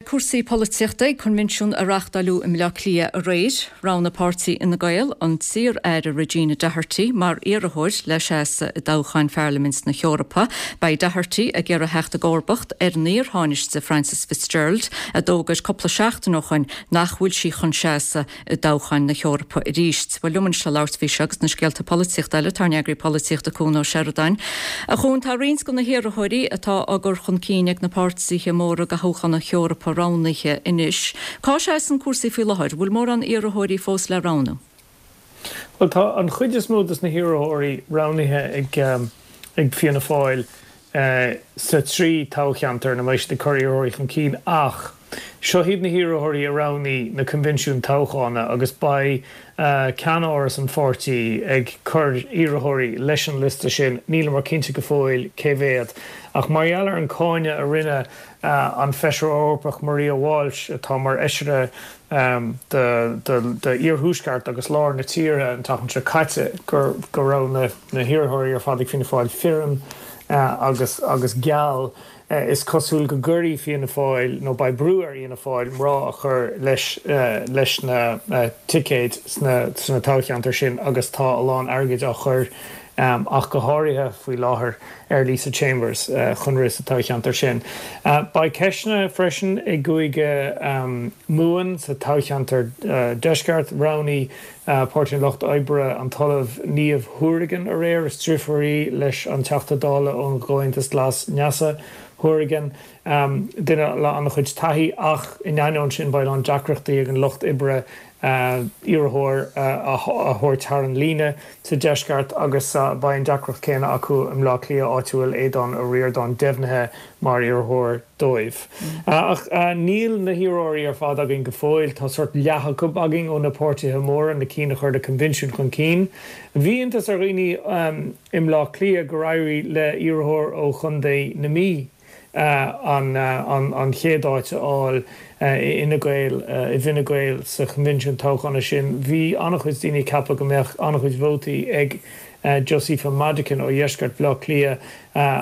cúrsaí polaitíochta ag coinbhinsiún a reáchtáileadh i mBleá Cliath aréir. Roghnaigh páirtí Fhine Gael an t-iar-aire Regina Doherty mar iarrthóir le seasamh i dtoghchán Pharlaimint na hEorpa. Beidh Doherty ag iarraidh theacht i gcomharbacht ar an iar-Thánaiste Frances Fitzgerald a d'fhógair cúpla seachtain ó shoin nach bhfuil sí chun seasamh i dtoghcháin na hEorpa arís. Bhuel, liom anois le labhairt faoi seo agus na scéalta polaitíochta eile, tá ár n-eagraí polaitíochta Cuan Ó Seireadáin. A Chuain, tá roinnt de na hiarrthóirí atá á gcur chun cinn ag na páirtithe móra do thoghchán na hEorpa roghnaithe anois. Cá seasann cúrsaí faoi láthair? Bhfuil mórán iarrthóirí fós le roghnú? Bhuel, tá an chuid is mó de na hiarrthóirí roghnaithe ag Fianna Fáil sa trí toghcheantar ina mbeidh siad ag cur iarrthóirí chun cinn ach seo iad na hiarrthóirí a roghnaigh na coinbhinsiúin toghchána agus beidh ceannáras an pháirtí ag cur iarrthóirí leis an liosta sin, níleamar cinnte go fóill cé mhéad. Ach mar gheall ar an cáineadh a rinne an Feisire Eorpach Maria Walsh, atá mar fheisire d'iarthuaisceart agus lár na tíre an tseachtain seo caite, go raibh na hiarrthóirí ar fad ag Fianna Fáil fireann agus agus geal. Is cosúil go gcuirfidh Fianna Fáil, nó beidh brú ar Fhianna Fáil, mná a chur leis leis na ticéid sna toghcheantair sin agus tá a lán airgid á chur ach go háirithe faoi láthair ar Lisa Chambers chun rith sa toghcheantar sin. Beidh ceisteanna freisin i gCúige Mumhan sa toghcheantar Deisceart. Roghnaigh Páirtí an Lucht Oibre an tOllamh Niamh Hourigan aréir. Is driofúr í leis an Teachta Dála ón gComhaontas Glas Neasa Hourigan, duine le an-chuid taithí ach in ainneoin sin beidh a lán deacrachtaí ag an Lucht Oibre iarrthóir a thabhairt thar an líne sa deisceart agus beidh an deacracht céanna acu i mBleá Cliath áit a bhfuil Aodhán Ó Ríordáin deimhnithe mar iarrthóir dóibh. Ach níl na hiarrthóirí ar fad againn go fóill. Tá sórt leath acu againn ó na páirtithe móra, na cinn a chuir na coinbhinsiúin chun cinn. Bhí iontas ar dhaoine i mBleá Cliath gur éirigh le iarrthóir ó Chontae na Mí an chéad áit a fháil i Fhine Gael, i bhFine Gael sa choinbhinsiún toghchána sin. Bhí an-chuid daoine ag ceapadh go mbeadh an-chuid vótaí ag Josepha Madigan ó dheisceart Bhaile Átha Cliath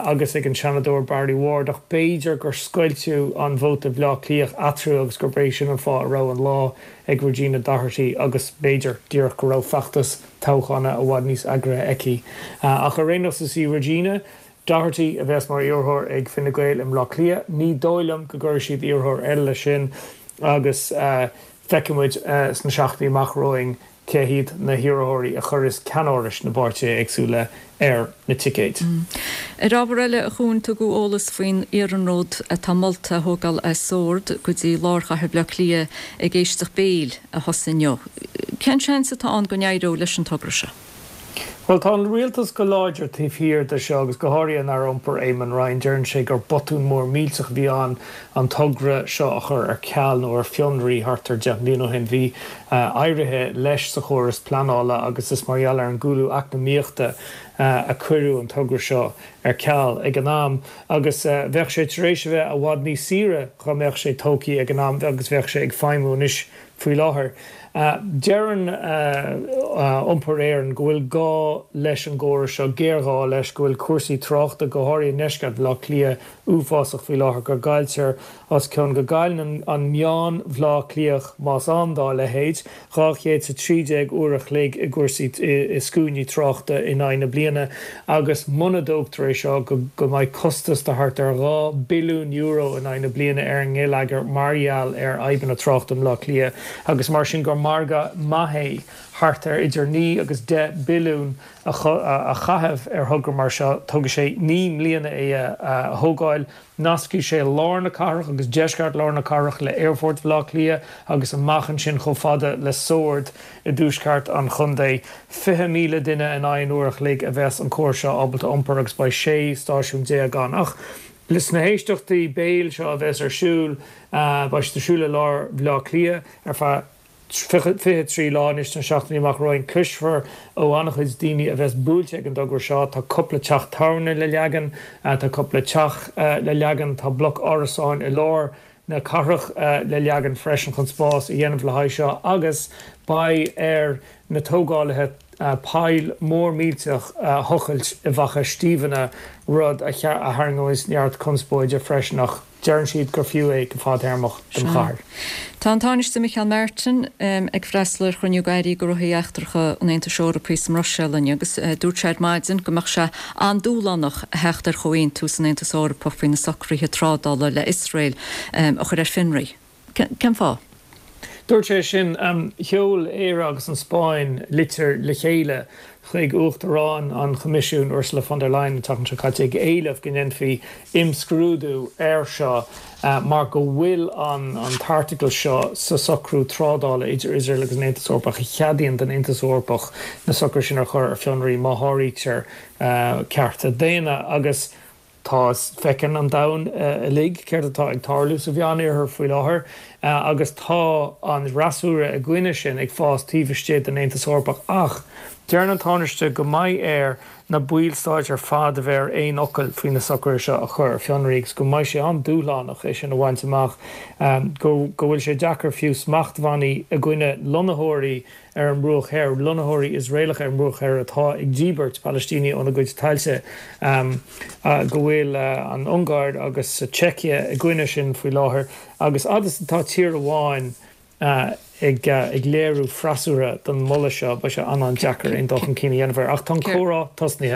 agus ag an Seanadóir Barry Ward ach b'fhéidir gur scoilteadh an vóta Bhaile Átha Cliath eatarthu agus gurb é sin an fáth a raibh an lá ag Regina Doherty agus b'fhéidir díreach go raibh feachtas toghchána i bhfad níos eagraithe aici. Ach ar aon nós is í Regina Doherty a bheas mar iarrthóir ag Fine Gael i mBleá Cliath. Ní dóigh liom go gcuirfidh siad iarrthóir eile leis sin agus feicfidh muid sna seachtainí amach romhainn cé hiad na hiarrthóirí a chuirfeas ceannárais na bpáirtithe éagsúla ar na ticéid. Ar ábhar eile, a Chuain, tugadh eolas faoin iarnród atá molta a thógáil as Sord go dtí lár chathair Bhaile Átha Cliath ag éisteacht béil a thosaigh inniu. Cén seans atá ann go n-éireoidh leis an togra seo? Bhuel, tá an rialtas go láidir taobh thiar de seo agus go háirithe an Aire Iompair Eamon Ryan. Deireann sé gur botún mór millteach a bhí ann an togra seo a chur ar ceal nó ar fionraí thart ar 10 mbliana ó shin. Bhí éirithe leis sa chóras pleanála agus is mar gheall ar an gcúlú eacnamaíochta a cuireadh an togra seo ar ceal ag an am agus bheadh sé tar éis a bheith i bhfad níos saoire dá mbeadh sé tógtha ag an am agus bheadh sé ag feidhmiú anois Faoi láthair, deireann Iompar Éireann go bhfuil gá leis an gcóras seo, géarghá leis, go bhfuil cúrsaí tráchta, go háirithe i ndeisceart Bhaile Átha Cliath, uafásach faoi láthair, go gcailltear os cionn, go gcailleann an meán Bhaile Átha Cliathach, más ann dá leithéid, 213 uair a chloig i gcúrsaí, i scuainí tráchta in aghaidh na bliana agus muna dtógtar é seo go go mbeidh costas de thart ar €2 billiún in aghaidh na bliana ar an ngeilleagar mar gheall ar fhadhbanna tráchta i mBleá Cliath agus mar sin gur margadh maith é thart ar idir 9 agus 10 billiún a chaitheamh ar thogra mar seo. Tógfaidh sé 9 mbliana é a thógáil. Nascfaidh sé lár na cathrach agus deisceart lár na cathrach le Aerfort Bhaile Átha Cliath agus amach ansin chomh fada le Sord i dtuaisceart an chontae. 20,000 duine in aghaidh an uair a chloig a bheas an córas seo ábalta iompar agus beidh 16 stáisiún ann. Ach sna héisteachtaí béil seo a bheas ar siúl, beidh siad ar siúl i lár Bhaile Átha Cliath ar feadh 23 lá anois sna seachtainí amach romhainn. Cloisfear ó an-chuid daoine a bheas buailte ag an dtogra seo. Tá cúpla teach tábhairne le leagan, tá cúpla teach le leagan, tá bloc árasáin i lár na cathrach le leagan freisin chun spás a dhéanamh le haghaidh seo agus beidh ar na tógálaithe poll mór millteach a thochailt i bhFaiche Stiabhna, rud a tharraingeoidh neart conspóide freisin. Ach. Deireann siad gur fiú é go fadtéarmach don chathair. Tá an Tánaiste Micheál Martin ag freastal ar chruinniú Airí Gnóthaí Eachtracha an Aontais Eorpaigh sa mBruiséil inniu agus dúirt sé ar maidin go mbeadh sé an-dúshlánach a theacht ar chomhaontú san Aontas Eorpach faoi na socruithe trádála le Iosrael a chur ar fionraí. Cén fáth? Dúirt sé sin. Sheol Éire agus an Spáinn litir le chéile chuig Uachtarán an Choimisiúin, Ursula von der Leyen, an tseachtain seo caite ag éileamh go ndéanfaí imscrúdú air seo mar go bhfuil an t-airteagal seo sa socrú trádála idir Iosrael agus an Aontas Eorpach a cheadaíonn don Aontas Eorpach na socruithe sin a chur ar fionraí má sháraítear cearta daonna agus Tá, feiceann an domhan uilig céard atá ag tarlú sa Mheánoirthear faoi láthair agus tá an fhreasúra i gcoinne sin ag fás taobh istigh den Aontas Eorpach. Ach deireann an Tánaiste go mbeidh air na ballstáit ar fad a bheith ar aon fhocal faoi na socruithe seo a chur ar fionraí agus go mbeidh sé an-dúshlánach é sin a bhaint amach, go bhfuil sé deacair fiú smachtbhannaí i gcoinne lonnaitheoirí ar an mBruach Thoir, lonnaitheoirí Iosraelacha ar an mBruach Thoir atá ag díbirt Palaistínigh óna gcuid tailte, go bhfuil an Ungáir agus Seicia i gcoinne sin faoi láthair, agus fhad is atá tír amháin ag léiriú freasúra don mholadh seo, beidh sé an-an-deacair aon dul chun cinn a dhéanamh air. Ach tá an comhrá tosnaithe.